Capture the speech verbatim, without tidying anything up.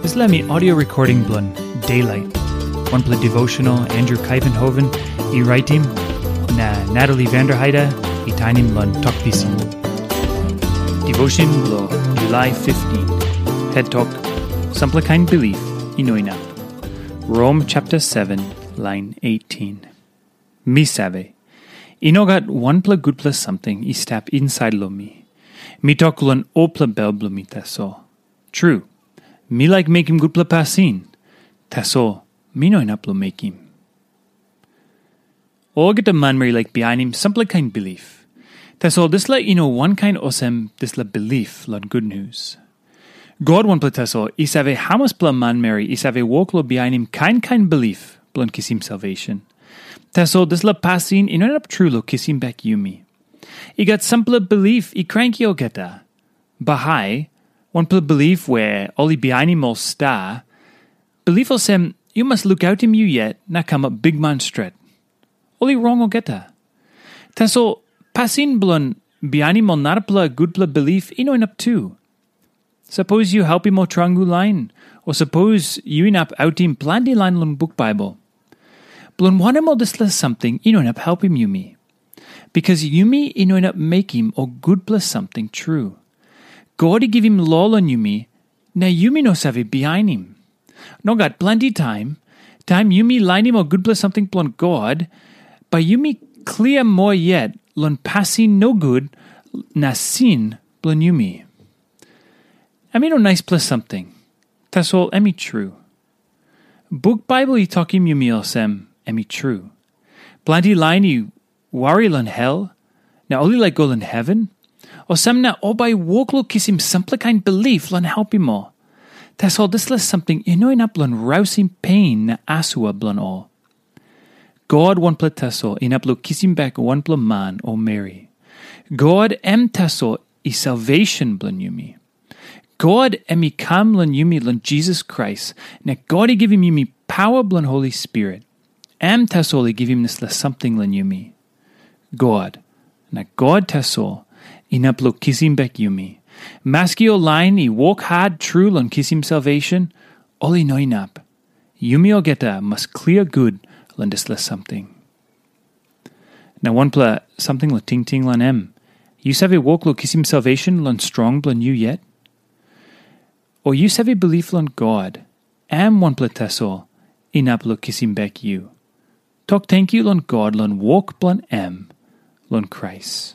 Dispela mi audio recording bilong Daylight, wanpela devotional Andrew Kaivenhoven i raitim, na Natalie Vanderheide i tainim long Tok Pisin. Devotion bilong July fifteen. Head Tok, sampela kain bilip i no inap. Rom chapter seven, line eighteen. Mi save, i no gat wanpela gutpela samting i stap insait long mi. Mi tok long olpela bel bilong mi tasol. Tru, mi laik mekim gutpela pasin, tasol mi no inap long mekim. Olgeta manmeri i laik bihainim sampela kain bilip. Tasol dispela i no wankain olsem dispela bilip long gutnius. God wanpela tasol i save hamaspela manmeri i save wok long bihainim kain kain bilip bilong kisim salvation. Tasol dispela pasin i no inap tru long kisim bek yumi. I gat sampela bilip i kranki olgeta. Bahai, wanpela bilip we ol i bihainim ol sta, bilip olsem yu mas lukautim yu yet na kamap bikman stret. Ol i rong olgeta. Tasol pasin bilong bihainim ol narapela gutpela bilip i no inap tu. Sapos yu helpim ol trangu lain, o sapos yu inap autim planti lain long buk Baibel. Bilong wanem ol dispela samting i no inap helpim yumi? Bikas yumi i no inap mekim ol gutpela samting tru. God i givim lo long yumi, na yumi no save bihainim. Nogat, planti taim, taim yumi lainim ol gutpela samting bilong God, bai yumi klia moa yet long pasin nogut na sin bilong yumi. Em i no naispela samting, tasol em i tru. Buk Baibel i tokim yumi olsem, em i tru. Planti lain i wari long hel, na ol i laik go long heven, olsem na ol bai i wok long kisim sampela kain bilip long helpim ol. Tasol dispela samting i no inap long rausim pen na asua bilong ol. God wanpela tasol inap long kisim bek wanpela man o meri. God em tasol i salvation bilong yumi. God em i kam long yumi long Jisas Krais, na God i givim yumi pawa bilong Holi Spirit. Em tasol i givim dispela samting long yumi. God, na God tasol, inap long kisim bek yumi. Maski ol lain i wok hat tru long kisim salvation, ol i no inap. Yumi olgeta mas klia gut long dispela samting. Na wanpela samting long tingting long em. Yu save wok long kisim salvation long strong bilong yu yet? O yu save bilip long God, em wanpela tasol inap long kisim bek yu? Tok tenkyu long God long wok bilong em long Krais.